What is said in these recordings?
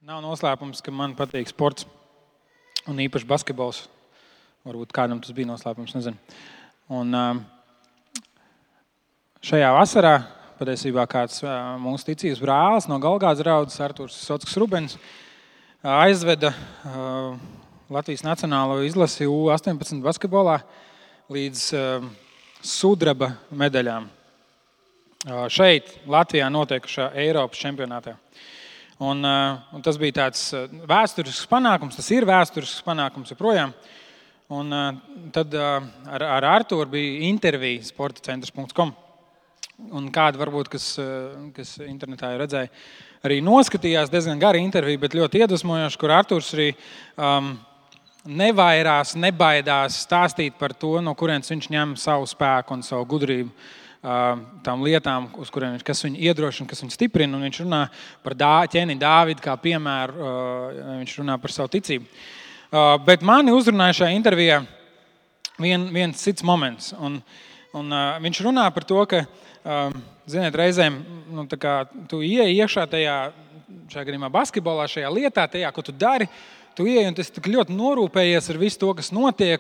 Nav noslēpums, ka man patīk sports un īpaši basketbols. Varbūt kādam tas bija noslēpums, nezinu. Un šajā vasarā patiesībā kāds mūsu ticības brālis no Galgādas draudzes, Arturs Sotskas Rubens, aizveda Latvijas nacionālo izlasi U18 basketbolā līdz sudraba medaļām. Šeit, Latvijā notiekušā Eiropas čempionātā. Un tas bija tāds vēsturisks panākums, tas ir vēsturisks panākums joprojām. Un tad ar Arturu bija intervija sportacentrs.com. Un kādi varbūt, kas internetā jau redzēja, arī noskatījās diezgan gara intervija, bet ļoti iedvesmojoši, kur Arturs arī nevairās, nebaidās stāstīt par to, no kurienes viņš ņem savu spēku un savu gudrību. Tām lietām, uz kuriem kas viņu iedrošina, kas viņu stiprina, un viņš runā par ķēni Dāvidu kā piemēru, viņš runā par savu ticību. Bet mani uzrunāja šajā intervijā viens cits moments, un viņš runā par to, ka, ziniet, reizēm, tā kā tu ieej iekšā šajā gadījumā basketbolā, šajā lietā, tajā, ko tu dari, tu ieej un tas ļoti norūpējies ar visu to, kas notiek,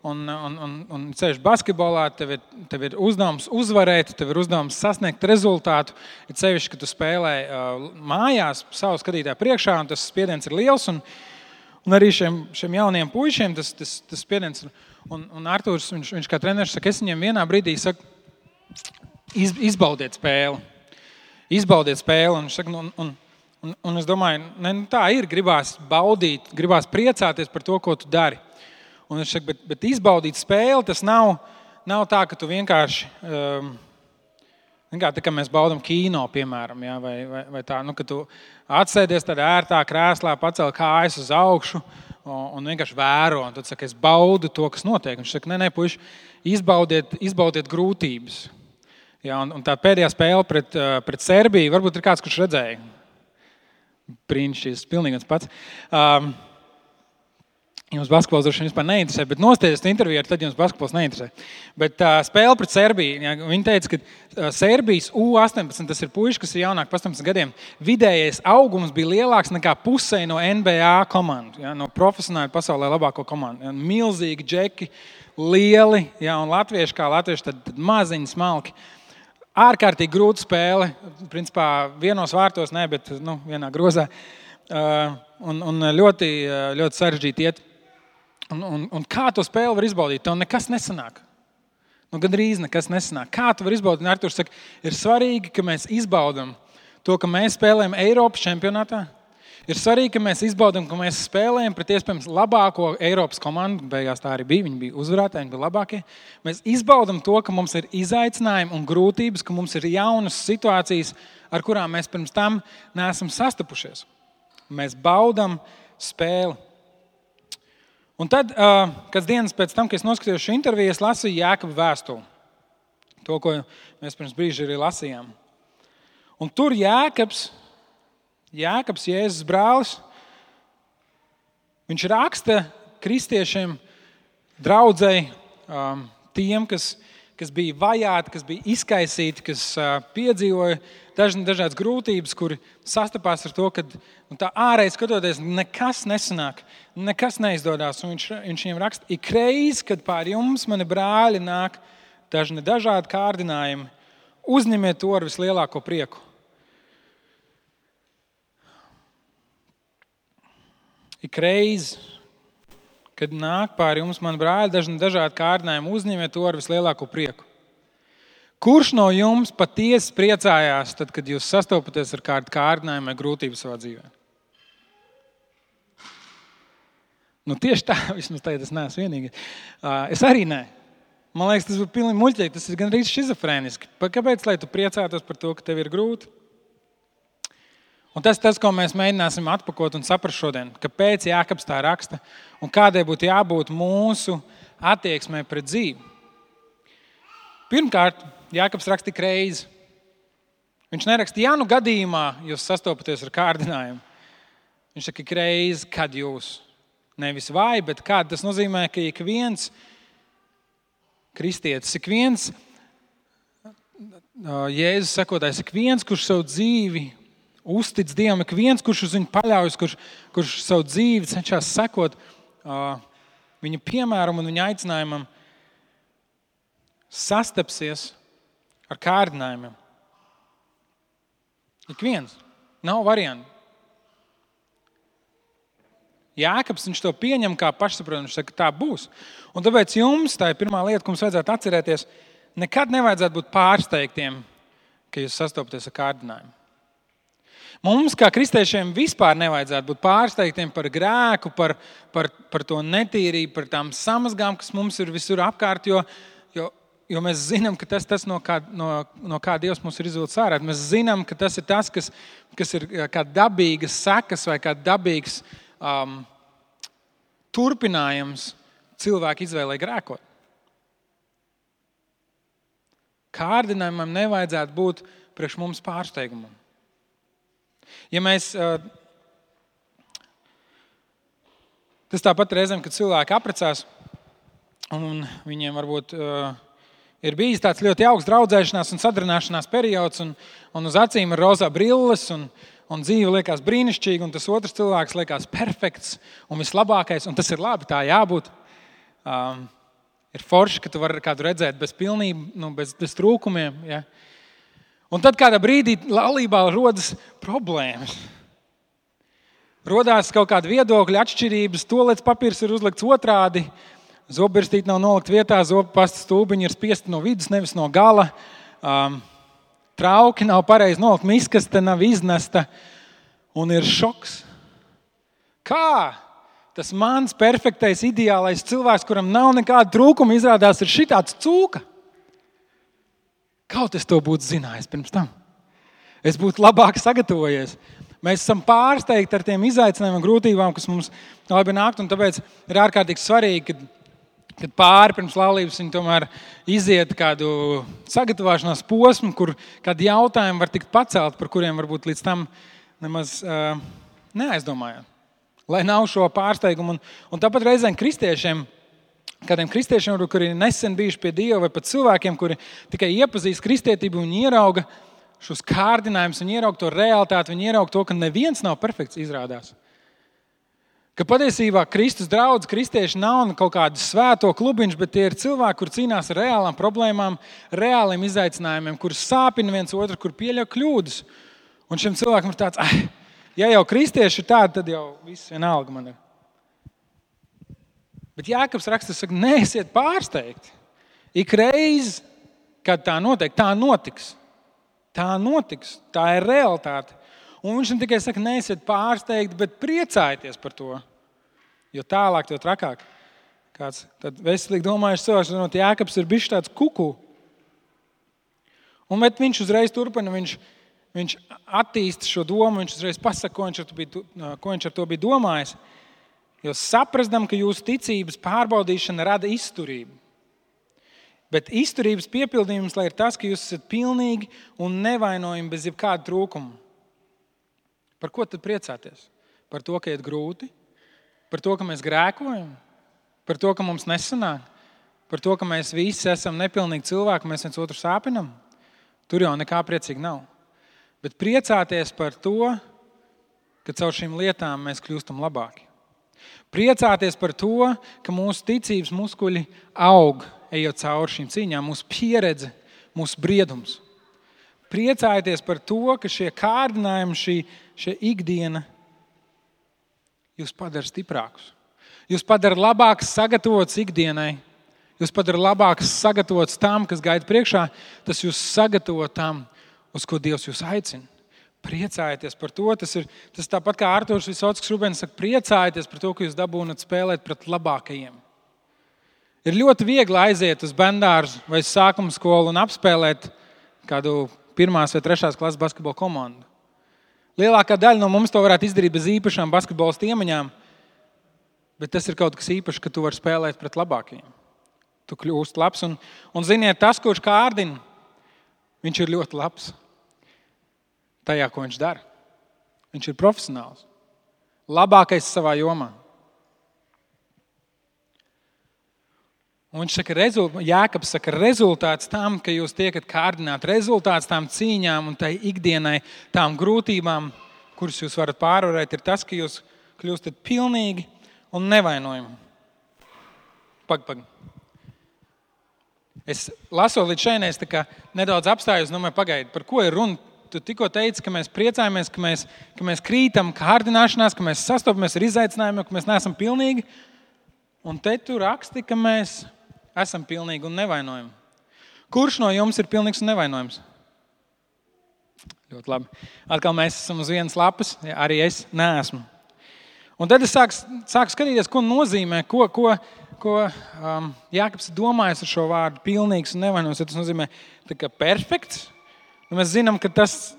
un ceļš basketbolā, tev ir uzdevums uzvarēt, tev ir uzdevums sasniegt rezultātu, ir sevišķi, ka tu spēlē mājās savu skatītāju priekšā, un tas spiediens ir liels, un arī šiem jauniem puišiem tas spiediens ir. Un Arturs, viņš kā treneris saka, es viņiem vienā brīdī saku, izbaudiet spēli, un viņš saka, un es domāju, tā ir, gribās baudīt, gribās priecāties par to, ko tu dari. Un viņš saka, bet izbaudīt spēli, tas nav tā, ka tu vienkārši, tā kā mēs baudam kino, piemēram, ja, vai tā, ka tu atsēdies tādā ērtā krēslā, pacel kājas uz augšu un vienkārši vēro. Un tu saki, es baudu to, kas notiek. Viņš saka, nē, puiši, izbaudiet grūtības. Ja, un tā pēdējā spēle pret Serbiju, varbūt ir kāds, kurš redzēja. Brīnišķīgs, pilnīgi viens pats. Jums basketbols droši vien vispār neinteresē, bet nostieties interviju, tad jums basketbols neinteresē. Bet spēle pret Serbiju, ja, viņi teica, ka Serbijas U18, tas ir puiši, kas ir jaunāk par 18 gadiem, vidējais augums bija lielāks nekā pusē no NBA komandu, ja, no profesionāli pasaulē labāko komandu. Ja, milzīgi džeki, lieli, ja, un latvieši kā latvieši, tad maziņi, smalki. Ārkārtīgi grūta spēle, principā vienos vārtos, ne, bet vienā grozā. Un ļoti, ļoti sarežģīti iet. Un kā to spēli var izbaudīt? Tev nekas nesanāk. Gandrīz nekas nesanāk. Kā tu var izbaudīt? Arturs saka, ir svarīgi, ka mēs izbaudam to, ka mēs spēlējam Eiropas čempionātā. Ir svarīgi, ka mēs izbaudam, ka mēs spēlējam pret iespējams labāko Eiropas komandu. Beigās tā arī bija. Viņi bija uzvarētāji, viņi bija labākie. Mēs izbaudam to, ka mums ir izaicinājumi un grūtības, ka mums ir jaunas situācijas, ar kurām mēs pirms tam neesam sastapušies. Mēs baudam spēli. Un tad, kāds dienas pēc tam, kad es noskatījos šo interviju, es lasīju Jākaba vēstuli. To, ko mēs pirms brīža arī lasījām. Un tur Jākabs, Jēzus brālis, viņš raksta kristiešiem, draudzei, tiem, kas bija vajāti, kas bija izkaisīti, kas piedzīvoja dažādas grūtības, kuri sastapās ar to, ka tā ārēji skatoties nekas nesanāk, nekas neizdodās. Un viņš viņiem raksta, ik reiz, kad pār jums, mani brāļi, nāk dažādi kārdinājumi, uzņemiet to ar vislielāko prieku. Ik reiz, kad nāk pār jums, mani brāļi, dažādi kārdinājumi, uzņemiet to ar vislielāko prieku. Kurš no jums patiesi priecājās, tad, kad jūs sastopaties ar kādu kārdinājumu vai grūtību savā dzīvē? Tieši tā, vismaz tagad es neesmu vienīgais. Es arī nē. Man liekas, tas būtu pilnīgi muļķīgi, tas ir gandrīz šizofrēniski. Kāpēc, lai tu priecātos par to, ka tev ir grūti? Un tas, ko mēs mēģināsim atpakot un saprast šodien, kāpēc Jākabs tā raksta un kādai būtu jābūt mūsu attieksmē pret dzīvi. Pirmkārt, Jākabs raksta tik reizi. Viņš neraksta, ja gadījumā jūs sastopaties ar kārdinājumu. Viņš saka, ik reizi, kad jūs, nevis vai, bet kad. Tas nozīmē, ka ik viens kristietis, ik viens Jēzus sekotājs, ik viens, kurš savu dzīvi uztic Dievam, ik viens, kurš uz viņu paļaujas, kurš savu dzīvi cenšas sekot viņa piemēram un viņa aicinājumam, sastapsies ar kārdinājumiem. Ik viens. Nav variantu. Jākabs, viņš to pieņem kā pašsaprotam, viņš saka, tā būs. Un tāpēc jums, tā ir pirmā lieta, ko mums vajadzētu atcerēties, nekad nevajadzētu būt pārsteigtiem, ka jūs sastopaties ar kārdinājumu. Mums, kā kristiešiem, vispār nevajadzētu būt pārsteigtiem par grēku, par to netīrību, par tām samazgām, kas mums ir visur apkārt, jo mēs zinām, ka tas no kā Dievs mums ir izvilcis ārā. Mēs zinām, ka tas ir tas, kas ir kā dabīgas sekas vai kā dabīgs turpinājums cilvēku izvēlē grēkot. Kārdinājumam nevajadzētu būt priekš mums pārsteigumam. Ja mēs, tas tāpat reizēm, kad cilvēki apprecās, un viņiem varbūt ir bijis tāds ļoti jauks draudzēšanās un sadarbināšanās periods, un uz acīm ir rozā brilles, un dzīve liekas brīnišķīga, un tas otrs cilvēks liekas perfekts un vislabākais, un tas ir labi, tā jābūt. Ir forši, ka tu vari kādu redzēt bez pilnību, bez trūkumiem. Ja? Un tad kādā brīdī laulībā rodas problēmas. Rodās kaut kāda viedokļa atšķirības, tualetes papīrs ir uzlikts otrādi, zobirstīte nav nolikt vietā, zobpasta stūbiņi ir spiesti no vidus, nevis no gala. Trauki nav pareizi nolikt, miskaste nav iznesta, un ir šoks. Kā tas mans perfektais, ideālais cilvēks, kuram nav nekāda trūkuma, izrādās ir šitāds cūka? Kaut es to būtu zinājis pirms tam. Es būtu labāk sagatavojies. Mēs esam pārsteigti ar tiem izaicinājumiem un grūtībām, kas mums labi nākt, un tāpēc ir ārkārtīgi svarīgi, kad pāri pirms laulības viņi tomēr iziet kādu sagatavošanās posmu, kur kādi jautājumi var tikt pacelt, par kuriem varbūt līdz tam nemaz neaizdomājāt. Lai nav šo pārsteigumu. Un tāpat reizēm kādiem kristiešiem, kuri nesen bijuši pie Dieva, vai pat cilvēkiem, kuri tikai iepazīst kristietību un ierauga šos kārdinājumus, viņi ierauga to realitāti, viņi ierauga to, ka neviens nav perfekts, izrādās. Ka patiesībā Kristus draudz, kristieši nav kaut kādu svēto klubiņš, bet tie ir cilvēki, kur cīnās ar reālām problēmām, reāliem izaicinājumiem, kur sāpina viens otru, kur pieļauj kļūdas. Un šim cilvēkam ir tāds, ja jau kristieši ir tādi, tad jau viss vienalga man ir. Bet Jākabs raksta, saka, neesiet pārsteigti. Ik reiz, kad tā notiek, tā notiks. Tā notiks, tā ir realitāte. Un viņš tikai saka, neesiet pārsteigti, bet priecājieties par to. Jo tālāk, jo trakāk. Kāds tad veselīgi domājuši cilvēks, Jākabs ir bijis tāds kuku. Un viņš uzreiz turpina, viņš attīsta šo domu, viņš uzreiz pasaka, ko viņš ar to bija domājis. Jo saprastam, ka jūsu ticības pārbaudīšana rada izturību. Bet izturības piepildījums, lai ir tas, ka jūs esat pilnīgi un nevainojami bez jebkāda trūkuma. Par ko tad priecāties? Par to, ka iet grūti? Par to, ka mēs grēkojam? Par to, ka mums nesanāk? Par to, ka mēs visi esam nepilnīgi cilvēki, mēs viens otru sāpinam? Tur jau nekā priecīgi nav. Bet priecāties par to, ka caur šīm lietām mēs kļūstam labāki. Priecāties par to, ka mūsu ticības muskuļi aug, ejot cauri šīm cīņām, mūsu pieredze, mūsu briedums. Priecājieties par to, ka šie kārdinājumi, šie ikdiena jūs padara stiprākus. Jūs padara labāks sagatavots ikdienai. Jūs padara labāks sagatavots tam, kas gaida priekšā. Tas jūs sagatavo tam, uz ko Dievs jūs aicina. Priecājieties par to. Tas tāpat kā Artūrs Visockis Rubens saka, priecājieties par to, ka jūs dabūnat spēlēt pret labākajiem. Ir ļoti viegli aiziet uz bendārzu vai sākuma skolu un apspēlēt kādu 1. vai 3. klases basketbola komandu. Lielākā daļa no mums to varētu izdarīt bez īpašām basketbola iemaņām, bet tas ir kaut kas īpašs, ka tu vari spēlēt pret labākajiem. Tu kļūst labs un ziniet, tas, kurš kārdina, viņš ir ļoti labs tajā, ko viņš dara. Viņš ir profesionāls. Labākais savā jomā. Un viņš saka, Jākabs saka, rezultāts tam, ka jūs tiekat kārdināti, rezultāts tām cīņām un tai ikdienai, tām grūtībām, kuras jūs varat pārvarēt, ir tas, ka jūs kļūstat pilnīgi un nevainojami. Pag. Es lasot līdz šeit, es nedaudz apstājos, pagaidi, par ko ir runa? Tu tikko teici, ka mēs priecājamies, ka mēs krītam kārdināšanās, ka mēs sastopamies ar izaicinājumiem, ka mēs neesam pilnīgi. Un te tu raksti, ka mēs esam pilnīgi un nevainojami. Kurš no jums ir pilnīgs un nevainojams? Ļoti labi. Atkal mēs esam uz vienas lapas, arī es neesmu. Un tad es sāku skatīties, ko nozīmē, ko Jākabs domājas ar šo vārdu pilnīgs un nevainojams. Tas nozīmē tā kā perfekts. Un mēs zinām, ka tas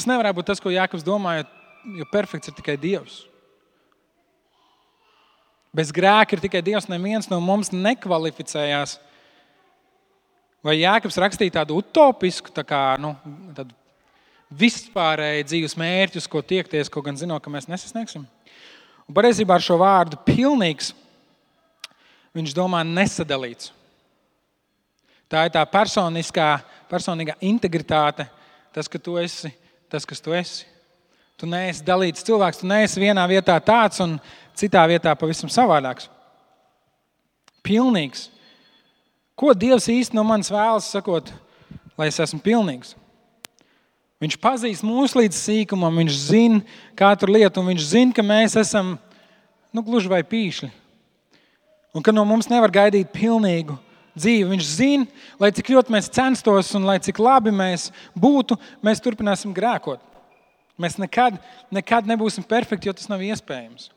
nevarētu būt tas, ko Jākabs domāja, jo perfekts ir tikai Dievs. Bez grēka ir tikai Dievs, neviens no mums nekvalificējās. Vai Jākabs rakstīja tādu utopisku, tādu vispārēju dzīves mērķus, ko tiekties, ko gan zinot, ka mēs nesasniegsim? Un patiesībā ar šo vārdu pilnīgs viņš domā nesadalīts. Tā ir tā personīgā integritāte, tas, ka tu esi tas, kas tu esi. Tu neesi dalīts cilvēks, tu neesi vienā vietā tāds un citā vietā pavisam savādāks. Pilnīgs. Ko Dievs īsti no manis vēlas, sakot, lai es esmu pilnīgs? Viņš pazīst mūs līdz sīkumam, viņš zina katru lietu, un viņš zina, ka mēs esam gluži vai pīšļi. Un ka no mums nevar gaidīt pilnīgu dzīvi. Viņš zina, lai cik ļoti mēs censtos un lai cik labi mēs būtu, mēs turpināsim grēkot. Mēs nekad nebūsim perfekti, jo tas nav iespējams.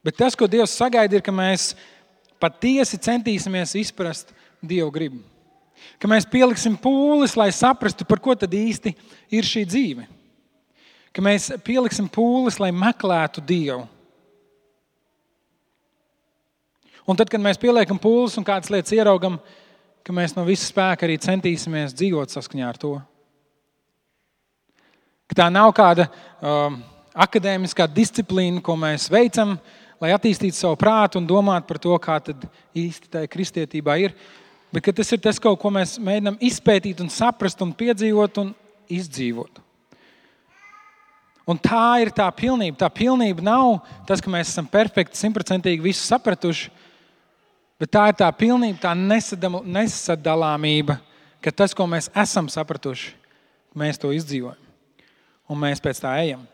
Bet tas, ko Dievs sagaida, ir, ka mēs patiesi centīsimies izprast Dievu gribu. Ka mēs pieliksim pūles, lai saprastu, par ko tad īsti ir šī dzīve. Ka mēs pieliksim pūles, lai meklētu Dievu. Un tad, kad mēs pieliekam pūles un kādas lietas ieraugam, ka mēs no visa spēka arī centīsimies dzīvot saskaņā ar to. Ka tā nav kāda akadēmiskā disciplīna, ko mēs veicam, lai attīstītu savu prātu un domātu par to, kā tad īsti tā kristietībā ir. Bet ka tas ir tas, ko mēs mēģinām izpētīt un saprast un piedzīvot un izdzīvot. Un tā ir tā pilnība. Tā pilnība nav tas, ka mēs esam perfekti, 100% visu sapratuši, bet tā ir tā pilnība, tā nesadalāmība, ka tas, ko mēs esam sapratuši, mēs to izdzīvojam. Un mēs pēc tā ejam.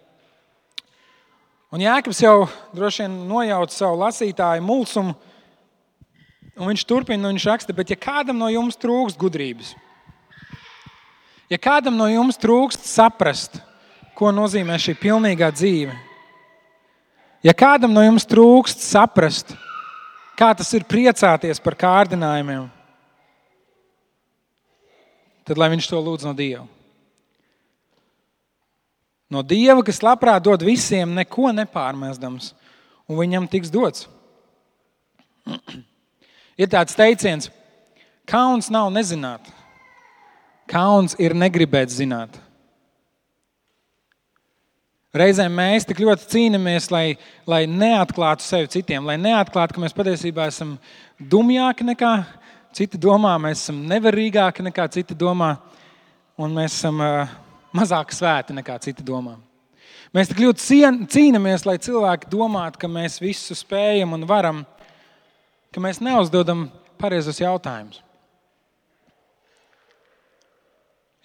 Un Jākabs jau droši vien nojauca savu lasītāju mulsumu, un viņš turpina, un viņš raksta, bet ja kādam no jums trūkst gudrības, ja kādam no jums trūkst saprast, ko nozīmē šī pilnīgā dzīve, ja kādam no jums trūkst saprast, kā tas ir priecāties par kārdinājumiem, tad lai viņš to lūdz no Dieva. No Dieva, kas labprāt dod visiem, neko nepārmestams, un viņam tiks dots. Ir tāds teiciens, kauns nav nezināt, kauns ir negribēt zināt. Reizēm mēs tik ļoti cīnāmies, lai neatklātu sevi citiem, lai neatklātu, ka mēs patiesībā esam dumjāki nekā citi domā, mēs esam nevarīgāki nekā citi domā, un mēs esam mazāk svēti nekā citi domā. Mēs tik ļoti cīnāmies, lai cilvēki domātu, ka mēs visu spējam un varam, ka mēs neuzdodam pareizos jautājumus.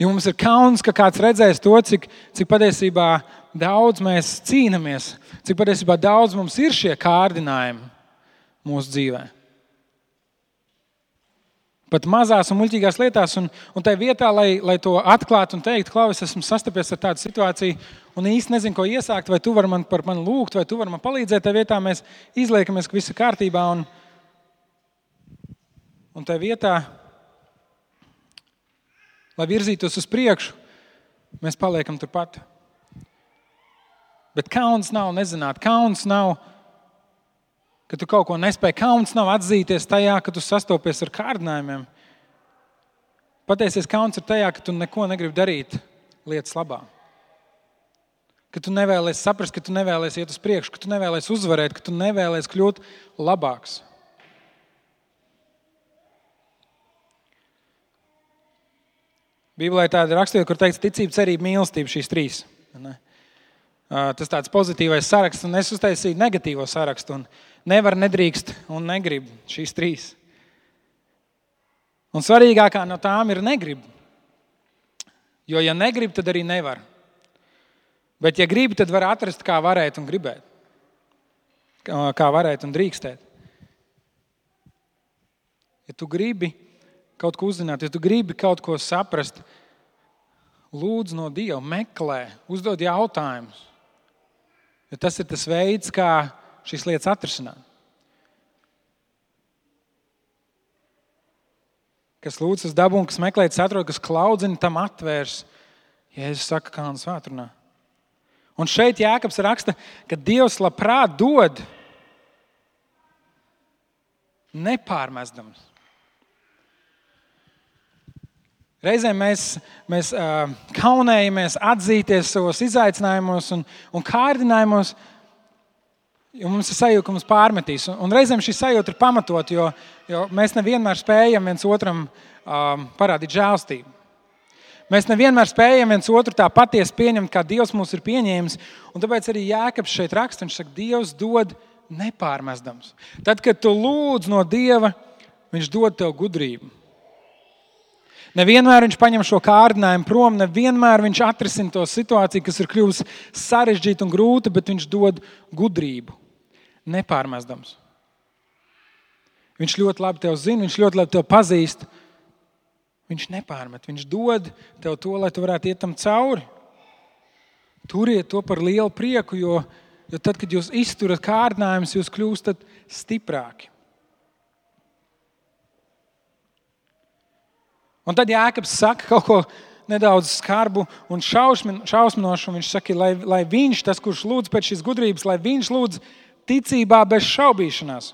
Jo mums ir kauns, ka kāds redzēs to, cik patiesībā daudz mēs cīnāmies, cik patiesībā daudz mums ir šie kārdinājumi mūsu dzīvē. Pat mazās un muļķīgās lietās, un tai vietā, lai to atklātu un teiktu, Klau, es esmu sastapies ar tādu situāciju un īsti nezinu, ko iesākt, vai tu vari par mani lūgt, vai tu vari man palīdzēt, tai vietā mēs izliekamies, ka viss ir kārtībā, un tai vietā, lai virzītos uz priekšu, mēs paliekam turpat. Bet kauns nav nezināt, kauns nav, ka tu kaut ko nespēji, kauns nav atzīties tajā, ka tu sastopies ar kārdinājumiem. Patiesies kauns ir tajā, ka tu neko negribi darīt lietas labā. Ka tu nevēlies saprast, ka tu nevēlies iet uz priekšu, ka tu nevēlies uzvarēt, ka tu nevēlies kļūt labāks. Bībelē ir tāda raksturība, kur teikts ticība, cerība, mīlestība, šīs trīs. Ne? Tas tāds pozitīvais saraksts, un es uztaisīju negatīvo sarakstu, un nevar, nedrīkst un negrib šīs trīs. Un svarīgākā no tām ir negrib. Jo, ja negrib, tad arī nevar. Bet, ja gribi, tad var atrast, kā varēt un gribēt. Kā varēt un drīkstēt. Ja tu gribi kaut ko uzzināt, ja tu gribi kaut ko saprast, lūdzu no Dieva, meklē, uzdod jautājumus. Jo tas ir tas veids, kā šīs lietas atrisināt. Kas lūdz uz dabu un kas meklē, atrod, kas klaudzina, tam atvērs. Jēzus saka, kā un svētrunā. Un šeit Jākabs raksta, ka Dievs labprāt dod nepārmestams. Reizēm mēs kaunējamies atzīties savos izaicinājumos un kārdinājumos, jo mums ir sajūta, ka mums pārmetīs. Un reizēm šī sajūta ir pamatot, jo mēs nevienmēr spējam viens otram parādīt žēlstību. Mēs nevienmēr spējam viens otru tā patiesi pieņemt, kā Dievs mūs ir pieņēmis. Un tāpēc arī Jākabs šeit raksta, viņš saka, Dievs dod nepārmestams. Tad, kad tu lūdz no Dieva, viņš dod tev gudrību. Nevienmēr viņš paņem šo kārdinājumu prom, nevienmēr viņš atrisina to situāciju, kas ir kļuvusi sarežģīta un grūta, bet viņš dod gudrību. Nepārmestams. Viņš ļoti labi tev zina, viņš ļoti labi tev pazīst. Viņš nepārmet, viņš dod tev to, lai tu varētu iet tam cauri. Turiet to par lielu prieku, jo tad, kad jūs izturat kārdinājumus, jūs kļūstat stiprāki. Un tad Jākabs saka kaut ko nedaudz skarbu un šausminošu. Viņš saka, lai viņš, tas, kurš lūdz pēc šīs gudrības, lai viņš lūdz ticībā bez šaubīšanās.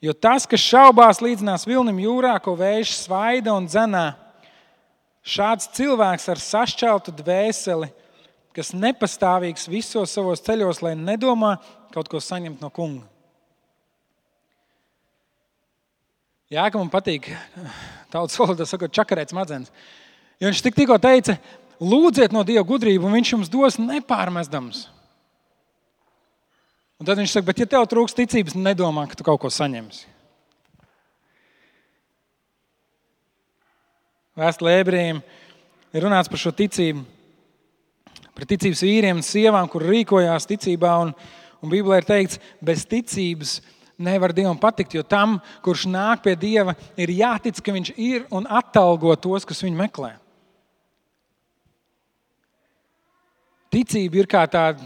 Jo tas, kas šaubās, līdzinās vilnim jūrā, ko vējš svaida un dzenā. Šāds cilvēks ar sašķeltu dvēseli, kas nepastāvīgs visos savos ceļos, lai nedomā kaut ko saņemt no kunga. Jākam patīk, tautas valodā sakot, čakarēt smadzenes. Jo viņš tikko teica, lūdziet no Dieva gudrību, un viņš jums dos nepārmestams. Un tad viņš saka, bet ja tev trūks ticības, nedomā, ka tu kaut ko saņemsi. Vēstulē Ebrejiem ir runāts par šo ticību, par ticības vīriem un sievām, kur rīkojās ticībā, un Bībelē ir teikts, bez ticības nevar Dievam patikt, jo tam, kurš nāk pie Dieva, ir jātic, ka viņš ir un atalgo tos, kas viņu meklē. Ticība ir kā tāda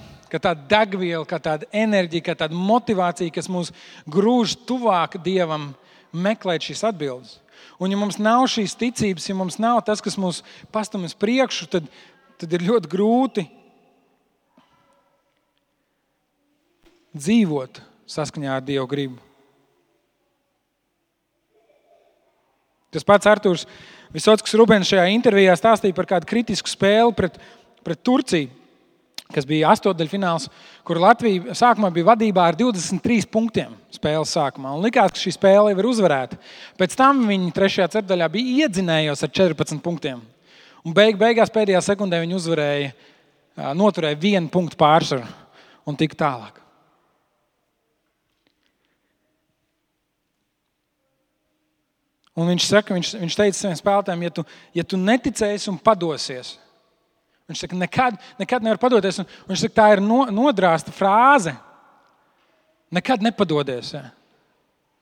degviela, kā tāda enerģija, kā tāda motivācija, kas mūs grūž tuvāk Dievam meklēt šīs atbildes. Un ja mums nav šīs ticības, ja mums nav tas, kas mūs pastum uz priekšu, tad ir ļoti grūti dzīvot saskaņā ar Dievu gribu. Tas pats Artūrs Visockis Rubens šajā intervijā stāstīja par kādu kritisku spēli pret Turciju, kas bija astotdaļfināls, kur Latvija sākumā bija vadībā ar 23 punktiem spēles sākumā. Un likās, ka šī spēle jau ir uzvarēta. Pēc tam viņi 3. ceturdaļā bija iedzinējos ar 14 punktiem. Un beigās pēdējā sekundē viņi noturēja 1 punktu pārsvaru un tika tālāk. Un viņš teica saviem spēlētājiem, ja tu neticēsi un padosies, viņš saka, nekad nevar padoties. Un viņš saka, tā ir nodrāsta frāze. Nekad nepadodies. Ja.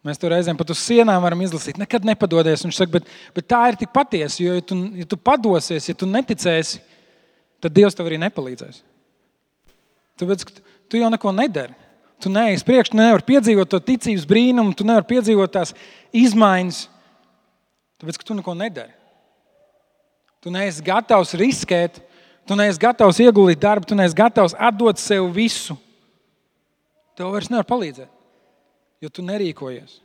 Mēs to reizēm pat uz sienām varam izlasīt. Nekad nepadodies. Viņš saka, bet tā ir tik patiesa, jo ja tu padosies, ja tu neticēsi, tad Dievs tev arī nepalīdzēs. Tāpēc, ka tu jau neko nedari. Tu neej uz priekšu, tu nevari piedzīvot to ticības brīnumu, tu nevari piedzīvot tās izmaiņas. Tāpēc, ka tu neko nedari. Tu neesi gatavs riskēt, tu neesi gatavs ieguldīt darbu, tu neesi gatavs atdot sev visu. Tev vairs nevar palīdzēt, jo tu nerīkojies.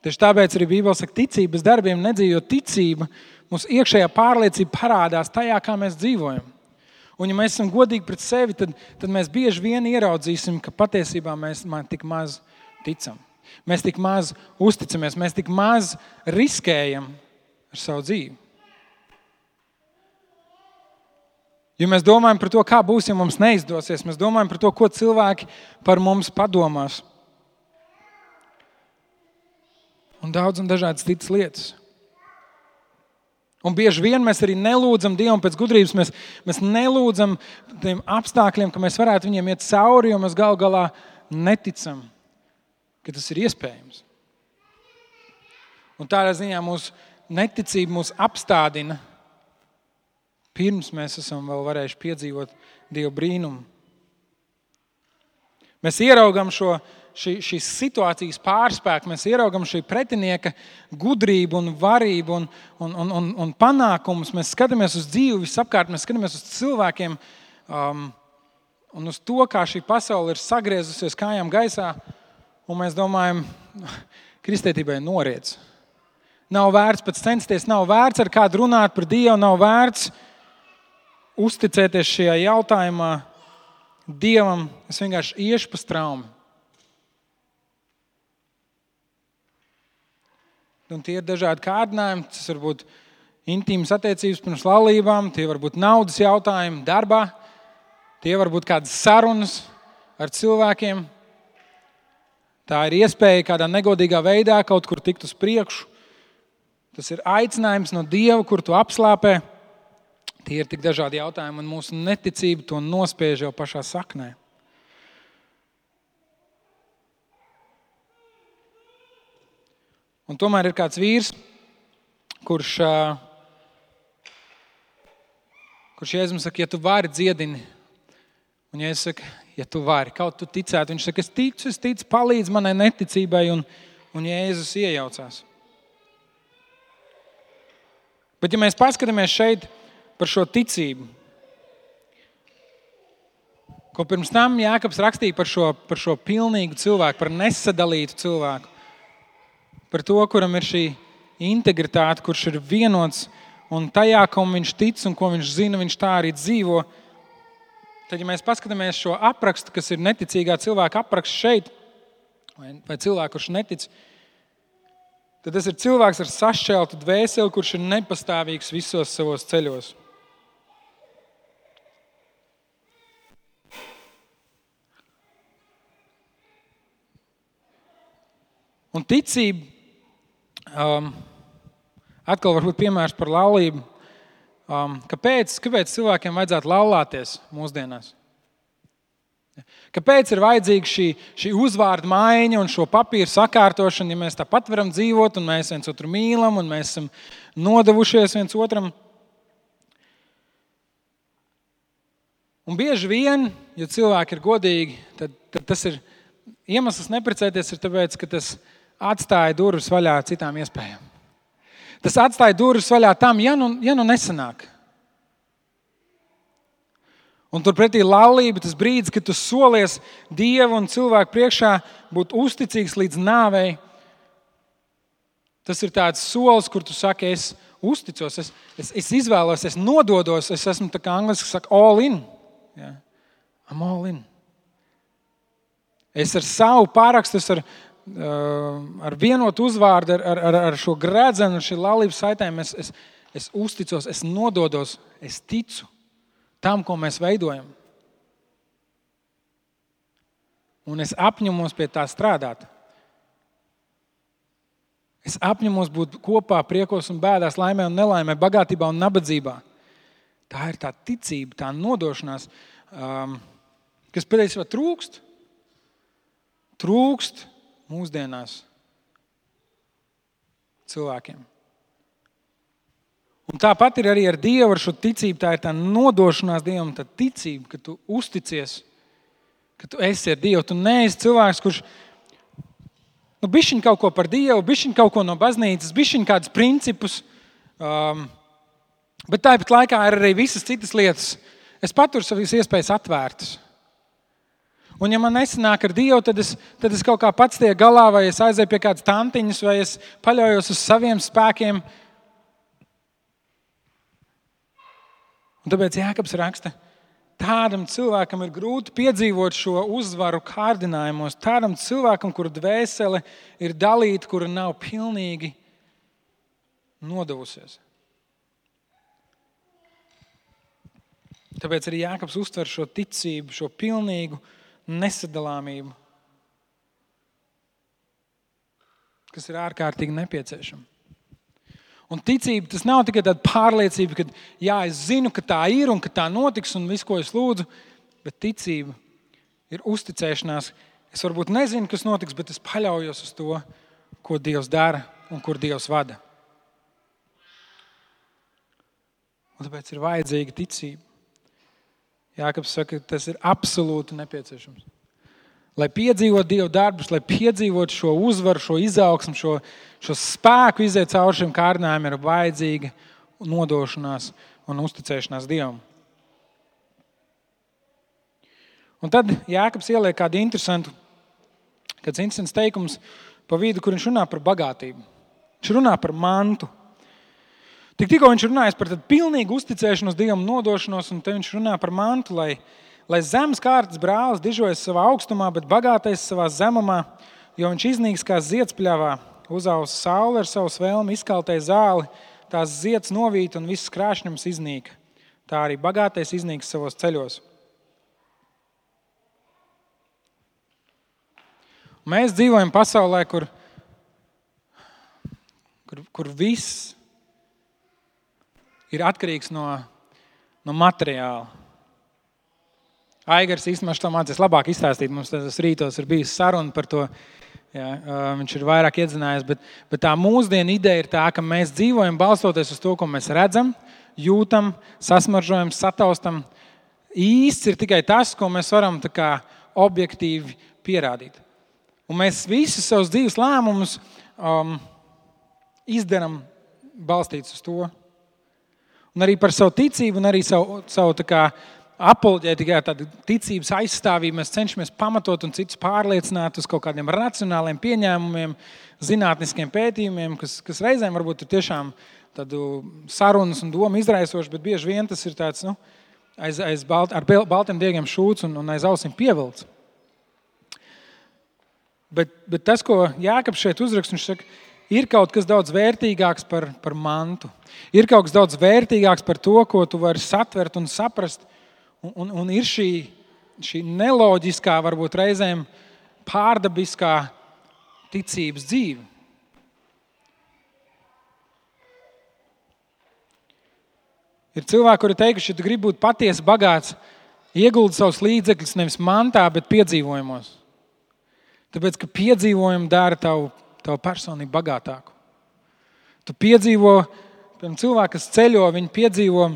Tieši tāpēc arī Bībele saka, ticība bez darbiem nedzīvo. Ticība, mūsu iekšējā pārliecība parādās tajā, kā mēs dzīvojam. Un ja mēs esam godīgi pret sevi, tad mēs bieži vien ieraudzīsim, ka patiesībā mēs tik maz ticam. Mēs tik maz uzticamies, mēs tik maz riskējam ar savu dzīvi. Jo mēs domājam par to, kā būs, ja mums neizdosies. Mēs domājam par to, ko cilvēki par mums padomās. Un daudz un dažādas citas lietas. Un bieži vien mēs arī nelūdzam Dievam pēc gudrības. Mēs nelūdzam tiem apstākļiem, ka mēs varētu viņiem iet cauri, jo mēs gal galā neticam, ka tas ir iespējams. Un tādā ziņā mūsu neticība mūs apstādina, pirms mēs esam vēl varējuši piedzīvot Dieva brīnumu. Mēs ieraugam šīs situācijas pārspēku, mēs ieraugam šī pretinieka gudrību un varību un panākumus. Mēs skatāmies uz dzīvi visapkārt, mēs skatāmies uz cilvēkiem un uz to, kā šī pasaule ir sagriezusies kājām gaisā, un mēs domājam, kristietībai noriec. Nav vērts pēc censties, nav vērts ar kādu runāt par Dievu, nav vērts uzticēties šajā jautājumā Dievam. Es vienkārši iešu pa straumi. Un tie ir dažādi kārdinājumi. Tas var būt intīmas attiecības pirms laulībām, tie var būt naudas jautājumi darbā, tie var būt kādas sarunas ar cilvēkiem. Tā ir iespēja kādā negodīgā veidā kaut kur tikt uz priekšu. Tas ir aicinājums no Dieva, kur tu apslāpē. Tie ir tik dažādi jautājumi, un mūsu neticība to nospiež jau pašā saknē. Un tomēr ir kāds vīrs, kurš Jēzus saka, ja tu vari, dziedini. Un Jēzus saka, ja tu vari, kaut tu ticētu. Viņš saka, es ticu, palīdz manai neticībai, un Jēzus iejaucās. Bet ja mēs paskatāmies šeit par šo ticību, ko pirms tam Jākabs rakstīja par šo pilnīgu cilvēku, par nesadalītu cilvēku, par to, kuram ir šī integritāte, kurš ir vienots, un tajā, kam viņš tic un ko viņš zina, viņš tā arī dzīvo. Tad, ja mēs paskatāmies šo aprakstu, kas ir neticīgā cilvēka apraksts šeit, vai cilvēku, kurš netic, tad tas ir cilvēks ar sašķeltu dvēseli, kurš ir nepastāvīgs visos savos ceļos. Un ticība, atkal varbūt piemērs par laulību. Kāpēc cilvēkiem vajadzētu laulāties mūsdienās? Kāpēc ir vajadzīga šī uzvārda maiņa un šo papīru sakārtošana, ja mēs tāpat varam dzīvot un mēs viens otru mīlam un mēs esam nodevušies viens otram? Un bieži vien, ja cilvēki ir godīgi, tad tas ir iemesls neprecēties, ir tāpēc, ka tas atstāja durvis vaļā citām iespējām. Tas atstāja durvis vaļā tam, ja nu nesanāk. Un turpretī laulība, tas brīdis, kad tu solies Dievu un cilvēku priekšā būt uzticīgs līdz nāvei, tas ir tāds solis, kur tu saki, es uzticos, es izvēlos, es nododos, es esmu tā kā angliski saka all in. Ja? I'm all in. Es ar savu pārakstu, ar vienotu uzvārdu, ar šo gredzenu, ar šī laulības saitēm, es uzticos, es nododos, es ticu tam, ko mēs veidojam. Un es apņemos pie tā strādāt. Es apņemos būt kopā priekos un bēdās, laimē un nelaimē, bagātībā un nabadzībā. Tā ir tā ticība, tā nodošanās, kas patiesībā trūkst. Trūkst mūsdienās cilvēkiem. Un tāpat ir arī ar Dievu, ar šo ticību. Tā ir tā nodošanās Dievam, tā ticība, ka tu uzticies, ka tu esi ar Dievu. Tu neesi cilvēks, kurš bišķiņ kaut ko par Dievu, bišķiņ kaut ko no baznīcas, bišķiņ kādus principus, bet tāpat laikā ir arī visas citas lietas. Es paturu savas iespējas atvērtas. Un ja man nesanāk ar Dievu, tad es kaut kā pats tiek galā, vai es aizēju pie kādas tantiņas, vai es paļaujos uz saviem spēkiem. Un tāpēc Jākabs raksta, tā tādam cilvēkam ir grūti piedzīvot šo uzvaru kārdinājumos, tādam cilvēkam, kura dvēsele ir dalīta, kura nav pilnīgi nodevusies. Tāpēc arī Jākabs uztver šo ticību, šo pilnīgu nesadalāmību, kas ir ārkārtīgi nepieciešama. Un ticība, tas nav tikai tāda pārliecība, ka jā, es zinu, ka tā ir un ka tā notiks un visu, ko es lūdzu, bet ticība ir uzticēšanās. Es varbūt nezinu, kas notiks, bet es paļaujos uz to, ko Dievs dara un kur Dievs vada. Un tāpēc ir vajadzīga ticība. Jākabs saka, ka tas ir absolūti nepieciešams. Lai piedzīvot Dieva darbus, lai piedzīvot šo uzvaru, šo izaugsmu, šo spēku iziet cauri šiem kārdinājumiem, ir vajadzīga nodošanās un uzticēšanās Dievam. Un tad Jākabs ieliek kāds interesants teikums pa vidu, kur viņš runā par bagātību. Viņš runā par mantu. Tikko viņš runājas par tādu pilnīgu uzticēšanos Dievam, nodošanos, un te viņš runā par mantu, lai zemes kārtas brālis dižojas savā augstumā, bet bagātais savā zemumā, jo viņš iznīks kā ziedspļavā, uzausa saule ar savu svēlmi, izkaltēja zāli, tās zieds novīt un viss krāšņums iznīka. Tā arī bagātais iznīks savos ceļos. Mēs dzīvojam pasaulē, kur viss ir atkarīgs no materiāla. Aigars īstenībā to mācīs labāk izstāstīt. Mums tas rītos ir bijis saruna par to. Jā, viņš ir vairāk iedzinājies, bet tā mūsdienu ideja ir tā, ka mēs dzīvojam balstoties uz to, ko mēs redzam, jūtam, sasmaržojam, sataustam. Īsts ir tikai tas, ko mēs varam tā kā objektīvi pierādīt. Un mēs visus savus dzīves lēmumus izdaram balstīts uz to. Un arī par savu ticību un arī savu tā kā apoloģētikai, tāda ticības aizstāvība, mēs cenšamies pamatot un citus pārliecināt uz kaut kādiem racionāliem pieņēmumiem, zinātniskiem pētījumiem, kas reizēm varbūt ir tiešām tādu sarunas un domu izraisoši, bet bieži vien tas ir tāds, ar baltiem diegiem šūts un aiz ausīm pievilts. Bet tas, ko Jākabs šeit uzraksta, viņš saka, ir kaut kas daudz vērtīgāks par mantu. Ir kaut kas daudz vērtīgāks par to, ko tu vari satvert un saprast. Un ir šī neloģiskā, varbūt reizēm pārdabiskā ticības dzīve. Ir cilvēki, kuri teikuši, ja tu gribi būt patiesi bagāts, ieguldi savus līdzekļus nevis mantā, bet piedzīvojumos. Tāpēc, ka piedzīvojumi dara tavu personību bagātāku. Tu piedzīvo, piemēram, cilvēki, kas ceļo, viņi piedzīvo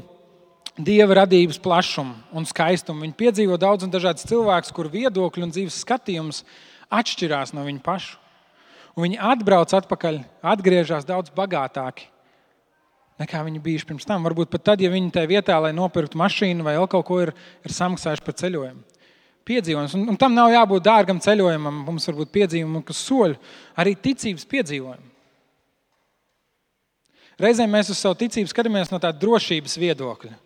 Dieva radības plašumu un skaistumu. Viņi piedzīvo daudz un dažādas cilvēkus, kur viedokļi un dzīves skatījums atšķirās no viņu pašu. Un viņi atbrauc atpakaļ, atgriežas daudz bagātāki, nekā viņi bijuši pirms tam. Varbūt pat tad, ja viņi tajā vietā, lai nopirktu mašīnu vai vēl kaut ko, ir samaksājuši par ceļojumu. Piedzīvojums. Un tam nav jābūt dārgam ceļojumam. Mums var būt piedzīvojumi, kas soļ arī ticības piedzīvojumi. Reizēm mēs uz savu ticību skatāmies no tāda drošības viedokļa.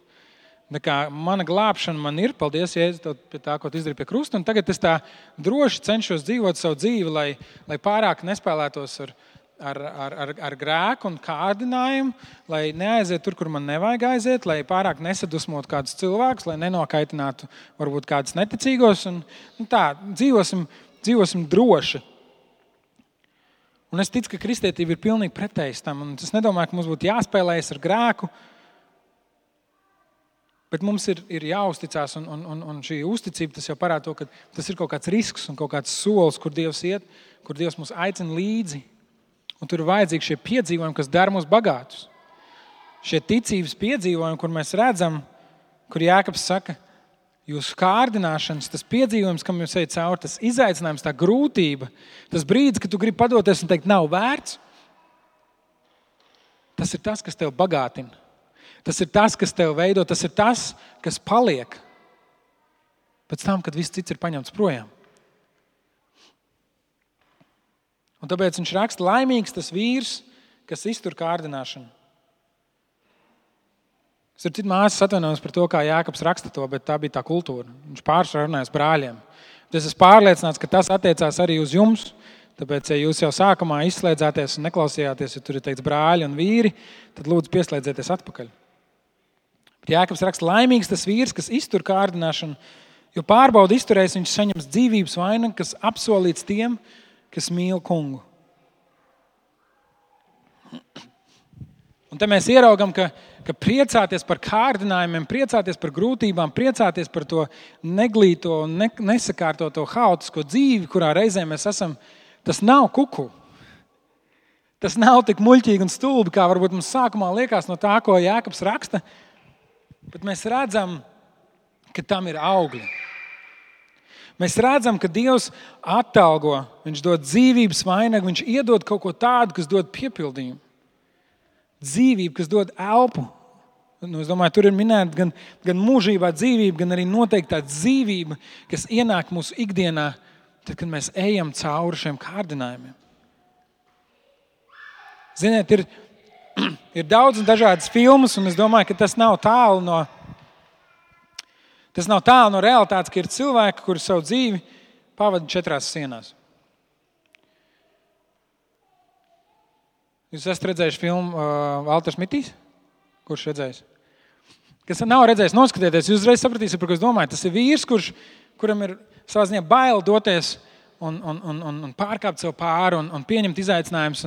Mana glābšana man ir, paldies, Jēzus, pie tā, ko tu izdarīji pie krusta, un tagad es tā droši cenšos dzīvot savu dzīvi, lai pārāk nespēlētos ar grēku un kārdinājumu, lai neaiziet tur, kur man nevajag aiziet, lai pārāk nesadusmot kādus cilvēkus, lai nenokaitinātu varbūt kādus neticīgos, un tā, dzīvosim droši. Un es ticu, ka kristietība ir pilnīgi pretējs tam, un es nedomāju, ka mums būtu jāspēlējas ar grēku, bet mums ir jāuzticās, un šī uzticība tas jau parāda to, ka tas ir kaut kāds risks un kaut kāds solis, kur Dievs iet, kur Dievs mūs aicina līdzi. Un tur ir vajadzīgi šie piedzīvojumi, kas dara mūs bagātus. Šie ticības piedzīvojumi, kur mēs redzam, kur Jākabs saka, jūsu kārdināšanas, tas piedzīvojums, kam jūs ejat cauri, tas izaicinājums, tā grūtība, tas brīdis, kad tu gribi padoties un teikt, nav vērts, tas ir tas, kas tev bagātina. Tas ir tas, kas tev veido, tas ir tas, kas paliek pēc tam, kad viss cits ir paņemts projām. Un tāpēc viņš raksta, laimīgs tas vīrs, kas iztur kārdināšanu. Starp citu, māsas atvainojas par to, kā Jākabs raksta to, bet tā bija tā kultūra. Viņš pārsvarā runājas brāļiem. Es esmu pārliecināts, ka tas attiecās arī uz jums. Tāpēc, ja jūs jau sākumā izslēdzāties un neklausījāties, ja tur ir teikts brāļi un vīri, tad lūdzu pieslēdzieties atpakaļ. Bet Jākabs raksta, laimīgs tas vīrs, kas iztur kārdināšanu, jo pārbauda izturēs, viņš saņems dzīvības vainagu, kas apsolīts tiem, kas mīl kungu. Un te mēs ieraugam, ka priecāties par kārdinājumiem, priecāties par grūtībām, priecāties par to neglīto, nesakārtoto, haotisko dzīvi, kurā reizē mēs esam, tas nav kuku. Tas nav tik muļķīgi un stulbi, kā varbūt mums sākumā liekas no tā, ko Jākabs raksta, bet mēs redzam, ka tam ir augļi. Mēs redzam, ka Dievs atalgo, viņš dod dzīvības vainagu, viņš iedod kaut ko tādu, kas dod piepildījumu. Dzīvību, kas dod elpu. Es domāju, tur ir minēta gan mūžībā dzīvība, gan arī noteikti tā dzīvība, kas ienāk mūsu ikdienā, tad, kad mēs ejam cauri šiem kārdinājumiem. Ziniet, ir daudz un dažādas filmas, un es domāju, ka tas nav tālu no realitātes, ka ir cilvēki, kuri savu dzīvi pavada 4 sienās. Jūs esat redzējuši filmu Valters Mitīs? Kurš redzējis? Kas nav redzējis, noskatieties, jūs uzreiz sapratīsiet, par ko es domāju. Tas ir vīrs, kuram ir savā ziņā bail doties un pārkāpt sev pāri un pieņemt izaicinājumus.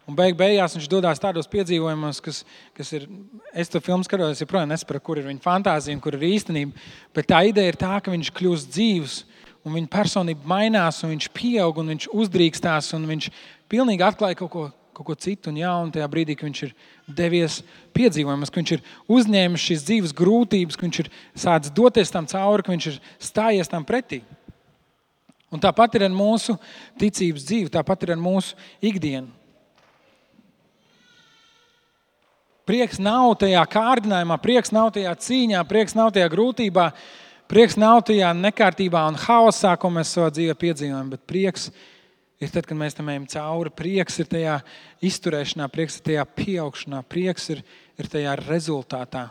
Un beigās viņš dodās tādos piedzīvojumos, kas ir, es to filmu skatos, joprojām nesapratu, kur ir viņa fantāzija un kur ir īstenība. Bet tā ideja ir tā, ka viņš kļūst dzīvs un viņa personība mainās un viņš pieaug un viņš uzdrīkstās un viņš pilnīgi atklāja kaut ko citu un jaunu tajā brīdī, ka viņš ir devies piedzīvojumus, ka viņš ir uzņēmis šīs dzīves grūtības, ka viņš ir sācis doties tam cauri, ka viņš ir stājies tam pretī. Un tāpat ir ar mūsu ticības dzīvi, tāpat ir ar mūsu ikdienu. Prieks nav tajā kārdinājumā, prieks nav tajā cīņā, prieks nav tajā grūtībā, prieks nav tajā nekārtībā un haosā, ko mēs savā dzīvē piedzīvojam, bet prieks ir tad, kad mēs tam ejam cauri. Prieks ir tajā izturēšanā, prieks ir tajā pieaugšanā, prieks ir tajā rezultātā,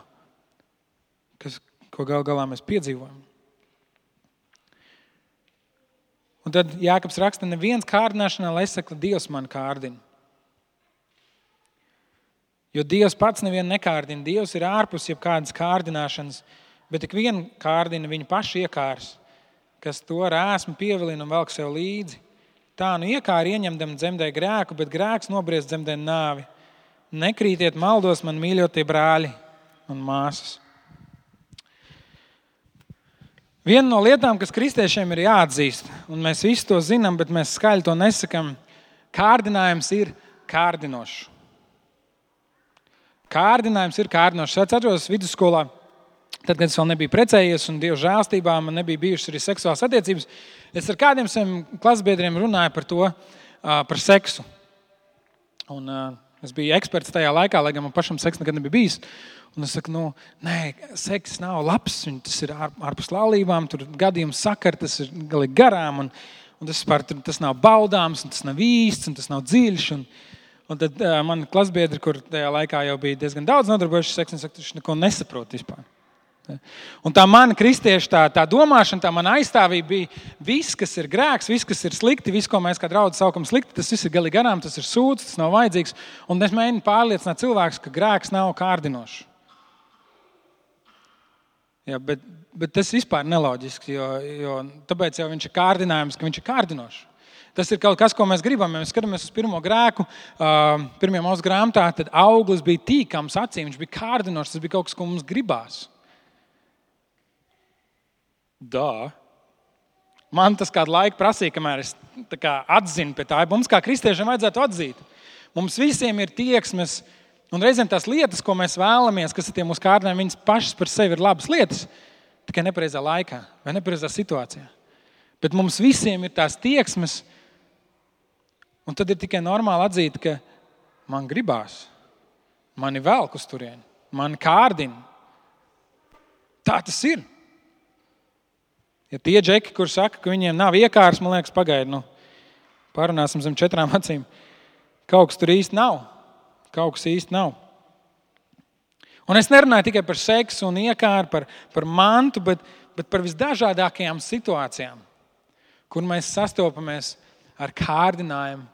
ko galā mēs piedzīvojam. Un tad Jākabs raksta, neviens kārdināšanā, lai saka, Dievs man kārdina. Jo Dievs pats nevienu nekārdina. Dievs ir ārpus jebkādas kārdināšanas, bet tik vienu kārdina viņa paši iekārs, kas to rēsmu pievilina un velk sev līdzi. Tā nu iekāri ieņemdam dzemdē grēku, bet grēks nobriest dzemdē nāvi. Nekrītiet maldos, man mīļotie brāļi un māsas. Viena no lietām, kas kristiešiem ir jāatzīst, un mēs visi to zinām, bet mēs skaļi to nesakam, kārdinājums ir kārdinošs. Kārdinājums ir kārdinošs. Es atceros vidusskolā, tad, kad es vēl nebiju precējies un Dieva žēlstībā man nebija bijušas arī seksuālas attiecības, es ar kādiem saviem klasbiedriem runāju par to, par seksu. Un es biju eksperts tajā laikā, lai gan man pašam seks nekad nebija bijis. Un es saku, nē, seks nav labs, tas ir ārpus laulībām, tur gadījums sakar, tas ir galīgi garām, un tas nav baudāms, un tas nav īsts, un tas nav dziļš. Un tad man klasbiedri, kur tajā laikā jau bija diezgan daudz nodarbojuši seksu, un saka, viņš neko nesaprot vispār. Un tā mana kristieša tā domāšana, tā mana aizstāvība bija viss, kas ir grēks, viss, kas ir slikti, viss, ko mēs kā draudzi saukam slikti, tas viss ir galīgi garām, tas ir sūds, tas nav vajadzīgs. Un es mēģinu pārliecināt cilvēkus, ka grēks nav kārdinošs. Jā, bet tas vispār neloģiski, jo tāpēc jau viņš ir kārdinājums, ka viņš ir kārdinošs. Tas ir kaut kas, ko mēs gribam. Ja mēs skatāmies uz pirmo grēku, pirmajā Mūzes grāmatā, tad auglis bija tīkams acīm, viņš bija kārdinošs, tas bija kaut kas, ko mums gribās. Man tas kādu laiku prasīja, kamēr es atzinu pie tā. Mums kā kristiešiem vajadzētu atzīt. Mums visiem ir tieksmes, un reizēm tās lietas, ko mēs vēlamies, kas ir tie mūsu kārdinājumi, viņas pašas par sevi ir labas lietas, tikai nepareizā laikā vai nepareizā situācijā. Bet mums visiem ir tās tieksmes, un tad ir tikai normāli atzīt, ka man gribās, mani velk uz turieni, mani kārdina. Tā tas ir. Ja tie džeki, kur saka, ka viņiem nav iekārs, man liekas, pagaidi, parunāsim zem 4 acīm. Kaut kas tur īsti nav. Kaut kas īsti nav. Un es nerunāju tikai par seksu un iekāru, par mantu, bet par visdažādākajām situācijām, kur mēs sastopamies ar kārdinājumu,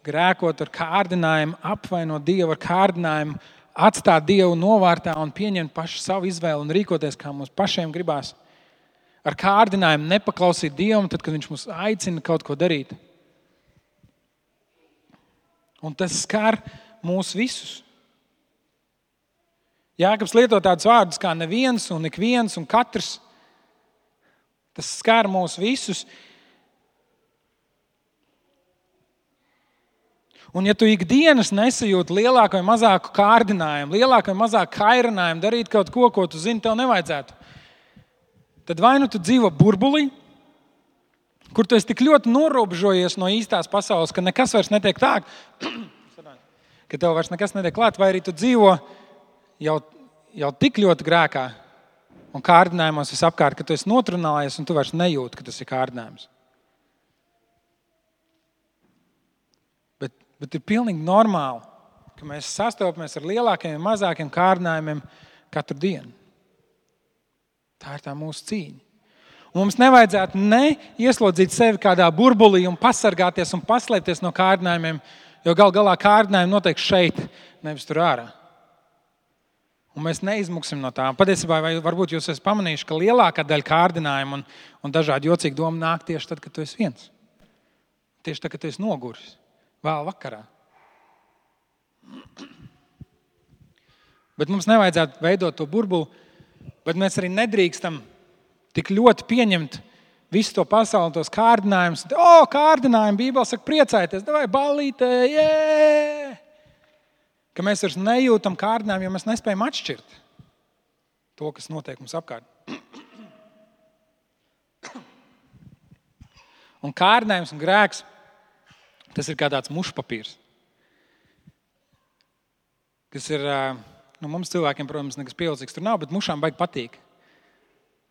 grēkot ar kārdinājumu, apvainot Dievu ar kārdinājumu, atstāt Dievu novārtā un pieņemt pašu savu izvēli un rīkoties, kā mums pašiem gribās. Ar kārdinājumu nepaklausīt Dievam, tad, kad Viņš mūs aicina kaut ko darīt. Un tas skar mūs visus. Jākabs lieto tādus vārdus kā neviens un ikviens un katrs. Tas skar mūs visus. Un ja tu ikdienas nesajūti lielāku vai mazāku kārdinājumu, lielāku vai mazāku kairinājumu darīt kaut ko, ko tu zini, tev nevajadzētu, tad vai nu tu dzīvo burbulī, kur tu esi tik ļoti norobežojies no īstās pasaules, ka nekas vairs netiek tā, ka tev vairs nekas netiek klāt, vai arī tu dzīvo jau tik ļoti grēkā un kārdinājumos visapkārt, ka tu esi notrunājies un tu vairs nejūti, ka tas ir kārdinājums. Bet ir pilnīgi normāli, ka mēs sastopamies ar lielākiem un mazākiem kārdinājumiem katru dienu. Tā ir tā mūsu cīņa. Un mums nevajadzētu ieslodzīt sevi kādā burbulī un pasargāties un paslēpties no kārdinājumiem, jo gal galā kārdinājumi notiek šeit, nevis tur ārā. Un mēs neizmuksim no tām. Patiesībā, vai varbūt jūs esat pamanījuši, ka lielākā daļa kārdinājumu un dažādi jocīgi domu nāk tieši tad, kad tu esi viens. Tieši tad, kad tu esi noguris. Vēl vakarā. Bet mums nevajadzētu veidot to burbuli, bet mēs arī nedrīkstam tik ļoti pieņemt visu to pasauli, tos kārdinājumus. Kārdinājumi, Bībele saka, priecājieties, davai ballītē, jē! Ka mēs vairs nejūtam kārdinājumu, jo mēs nespējam atšķirt to, kas notiek mums apkārt. Un kārdinājums un grēks, tas ir kā tāds mušpapīrs, kas ir, mums cilvēkiem, protams, nekas pievilcīgs tur nav, bet mušām baigi patīk.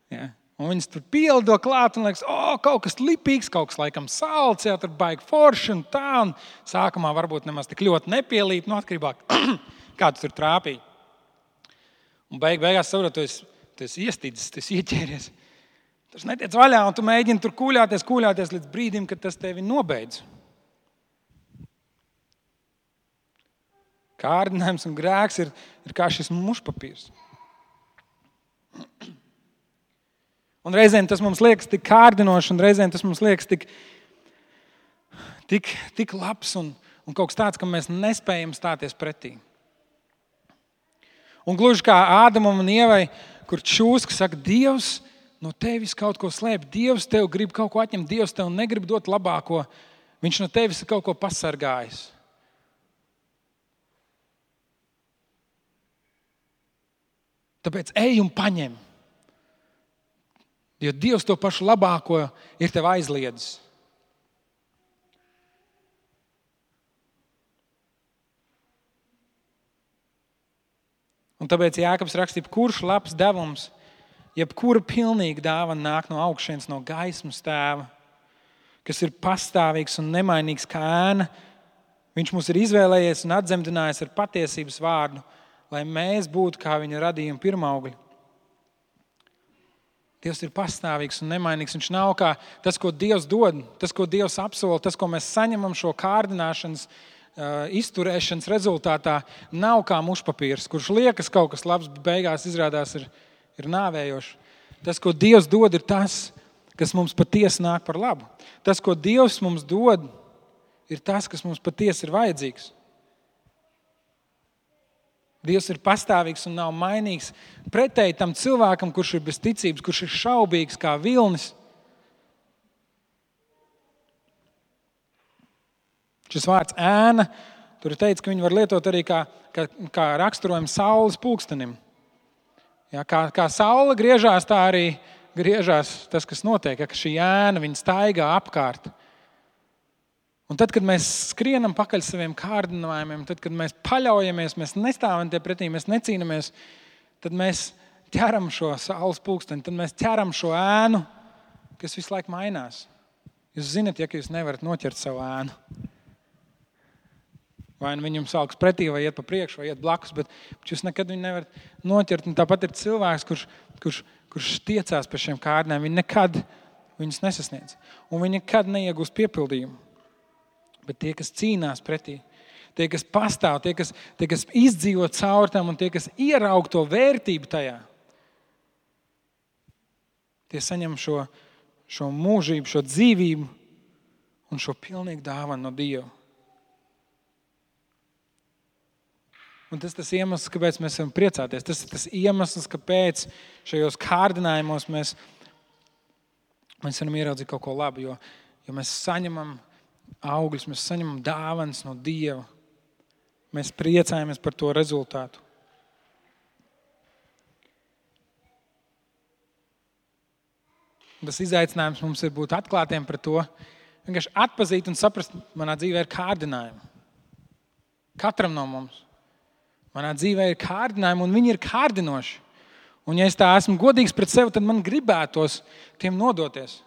Ja? Un viņas tur pielido klāt un liekas, kaut kas lipīgs, kaut kas laikam salds, tur baigi forši un tā, un sākumā varbūt nemaz tik ļoti nepielīp, atkarībā, kā tu tur trāpīji. Un beigās saprot, tu esi iestīdzis, tu esi ieķēries. Tas netiec vaļā, un tu mēģini tur kūļāties līdz brīdim, kad tas tevi nobeidz. Kārdinājums un grēks ir kā šis mušpapīrs. Un reizēm tas mums liekas tik kārdinoši, un reizēm tas mums liekas tik labs un kaut kas tāds, ka mēs nespējam stāties pretī. Un gluži kā Ādamam un Ievai, kur čūska saka, Dievs no tevis kaut ko slēp, Dievs tev grib kaut ko atņemt, Dievs tev negrib dot labāko, viņš no tevis ir kaut ko pasargājis. Tāpēc ej un paņem. Jo Dievs to pašu labāko ir tev aizliedzis. Un tāpēc Jākabs raksta, jebkurš labs devums, jebkura pilnīga dāvana nāk no augšienes, no gaismas tēva, kas ir pastāvīgs un nemainīgs kā ēna. Viņš mūs ir izvēlējies un atdzemdinājis ar patiesības vārdu, lai mēs būtu kā viņa radījuma pirmaugļi. Dievs ir pastāvīgs un nemainīgs. Viņš nav kā tas, ko Dievs dod, tas, ko Dievs apsola, tas, ko mēs saņemam šo kārdināšanas, izturēšanas rezultātā, nav kā mušpapīrs, kurš liekas kaut kas labs, bet beigās izrādās ir nāvējošs. Tas, ko Dievs dod, ir tas, kas mums patiesi nāk par labu. Tas, ko Dievs mums dod, ir tas, kas mums patiesi ir vajadzīgs. Dievs ir pastāvīgs un nav mainīgs. Pretēji tam cilvēkam, kurš ir bez ticības, kurš ir šaubīgs kā vilnis. Šis vārds ēna, tur ir teikts, ka viņi var lietot arī kā raksturojumu saules pulkstenim. Ja, kā saule griežās, tā arī griežās tas, kas notiek, ka šī ēna, viņa staigā apkārt. Un tad, kad mēs skrienam pakaļ saviem kārdinājumiem, tad, kad mēs paļaujamies, mēs nestāvam tie pretī, mēs necīnamies, tad mēs ķeram šo saules pulksteni, tad mēs ķeram šo ēnu, kas visu laiku mainās. Jūs zināt, ja jūs nevarat noķert savu ēnu. Vai nu viņam salks pretī, vai iet pa priekšu, vai iet blakus, bet jūs nekad viņu nevarat noķert. Un tāpat ir cilvēks, kurš tiecās pie šiem kārdinājumiem. Viņi nekad viņus nesasniedz. Un viņi nekad neiegūst piepildījumu. Bet tie, kas cīnās pretī, tie, kas pastāv, tie, kas izdzīvo caur tam un tie, kas ieraug to vērtību tajā, tie saņem šo mūžību, šo dzīvību un šo pilnīgu dāvanu no Dieva. Un tas ir tas iemesls, kāpēc mēs varam priecāties. Tas ir tas iemesls, kāpēc šajos kārdinājumos mēs varam ieraudzīt kaut ko labu, jo mēs saņemam augļus, mēs saņemam dāvanas no Dieva. Mēs priecājamies par to rezultātu. Tas izaicinājums mums ir būt atklātiem par to, vienkārši atpazīt un saprast, manā dzīvē ir kārdinājumi. Katram no mums. Manā dzīvē ir kārdinājumi, un viņi ir kārdinoši. Un ja es tā esmu godīgs pret sevi, tad man gribētos tiem nodoties.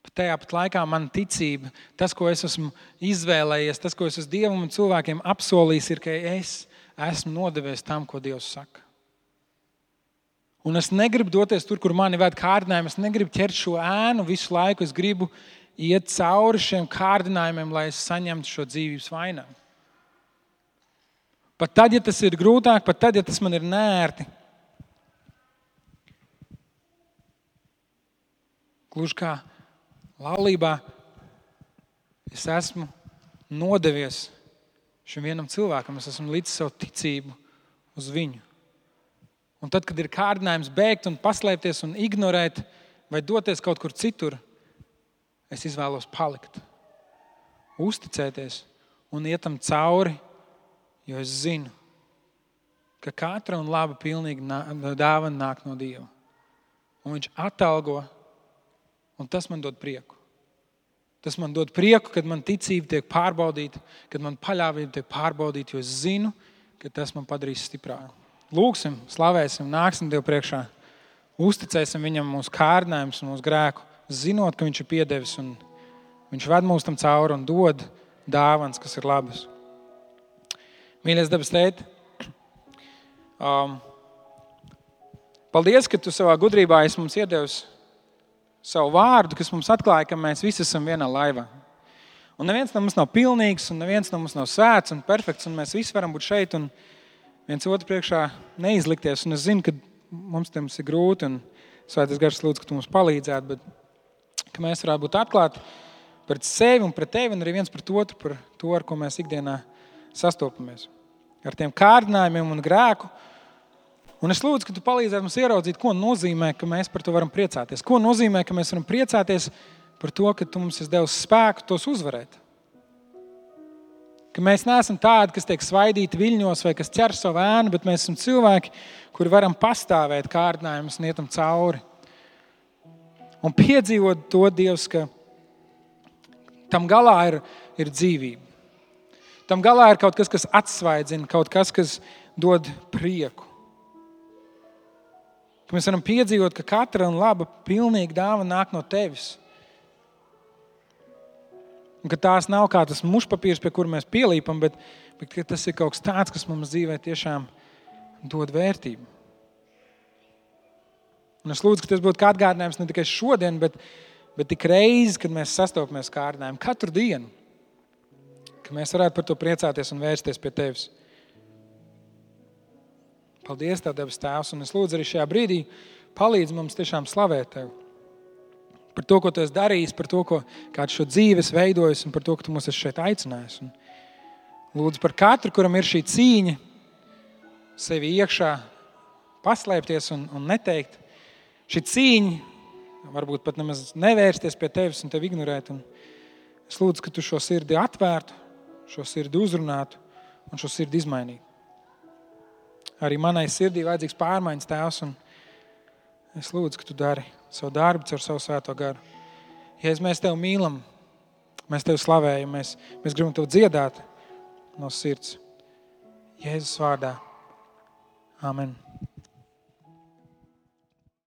Bet tajā pat laikā man ticība, tas, ko es esmu izvēlējies, tas, ko es esmu Dievam un cilvēkiem apsolījis, ir, ka es esmu nodevies tam, ko Dievs saka. Un es negribu doties tur, kur mani ved kārdinājumi. Es negribu ķert šo ēnu visu laiku. Es gribu iet cauri šiem kārdinājumiem, lai es saņemtu šo dzīvības vainagu. Pat tad, ja tas ir grūtāk, pat tad, ja tas man ir neērti. Gluži kā laulībā, es esmu nodevies šim vienam cilvēkam. Es esmu līdz savu ticību uz viņu. Un tad, kad ir kārdinājums bēgt un paslēpties un ignorēt vai doties kaut kur citur, es izvēlos palikt, uzticēties un iet tam cauri, jo es zinu, ka katra un laba pilnīga dāvana nāk no Dieva. Un viņš atalgo, un tas man dod prieku. Tas man dod prieku, kad man ticība tiek pārbaudīta, kad man paļāvība tiek pārbaudīta, jo es zinu, ka tas man padarīs stiprāku. Lūksim, slavēsim, nāksim Dievu priekšā, uzticēsim viņam mūsu kārdinājumus un mūsu grēku, zinot, ka viņš ir piedevis un viņš ved mūs tam cauri un dod dāvanas, kas ir labas. Mīļais debes Tēti, paldies, ka tu savā gudrībā esi mums iedevis savu vārdu, kas mums atklāja, ka mēs visi esam vienā laivā. Un neviens no mums nav pilnīgs, un neviens no mums nav svēts un perfekts, un mēs visi varam būt šeit un viens otru priekšā neizlikties. Un es zinu, ka mums ir grūti, un Svētais Gars lūdzu, ka tu mums palīdzētu, bet ka mēs varētu būt atklāti pret sevi un pret tevi, un arī viens pret otru par to, ar ko mēs ikdienā sastopamies. Ar tiem kārdinājumiem un grēku. Un es lūdzu, ka tu palīdzētu mums ieraudzīt, ko nozīmē, ka mēs par to varam priecāties. Ko nozīmē, ka mēs varam priecāties par to, ka tu mums esi devis spēku tos uzvarēt. Ka mēs neesam tādi, kas tiek svaidīti viļņos vai kas ķer savu ēnu, bet mēs esam cilvēki, kuri varam pastāvēt kārdinājumus un ietam cauri. Un piedzīvot to, Dievs, ka tam galā ir dzīvība. Tam galā ir kaut kas, kas atsvaidzina, kaut kas, kas dod prieku. Ka mēs varam piedzīvot, ka katra un laba pilnīga dāvana nāk no tevis. Un ka tās nav kā tas mušpapīrs, pie kura mēs pielīpam, bet ka tas ir kaut kas tāds, kas mums dzīvē tiešām dod vērtību. Un es lūdzu, ka tas būtu kā atgādinājums ne tikai šodien, bet tik reizi, kad mēs sastopamies kārdinājumu katru dienu. Ka mēs varētu par to priecāties un vērsties pie tevis. Paldies Tev, debes Tēvs, un es lūdzu arī šajā brīdī palīdz mums tiešām slavēt Tev. Par to, ko Tu esi darījis, par to, kādu šo dzīvi esi veidojis un par to, ka Tu mūs esi šeit aicinājis. Un lūdzu par katru, kuram ir šī cīņa sevi iekšā paslēpties un neteikt. Šī cīņa varbūt pat nemaz nevērsties pie Tevis un Tevi ignorēt. Un es lūdzu, ka Tu šo sirdi atvērtu, šo sirdi uzrunātu un šo sirdi izmainītu. Arī manai sirdī vajadzīgs pārmaiņas, Tēvs, un es lūdzu, ka Tu dari savu darbu caur savu Svēto Garu. Jēzus, mēs Tevi mīlam, mēs Tevi slavējam, mēs gribam Tevi dziedāt no sirds. Jēzus vārdā. Amen.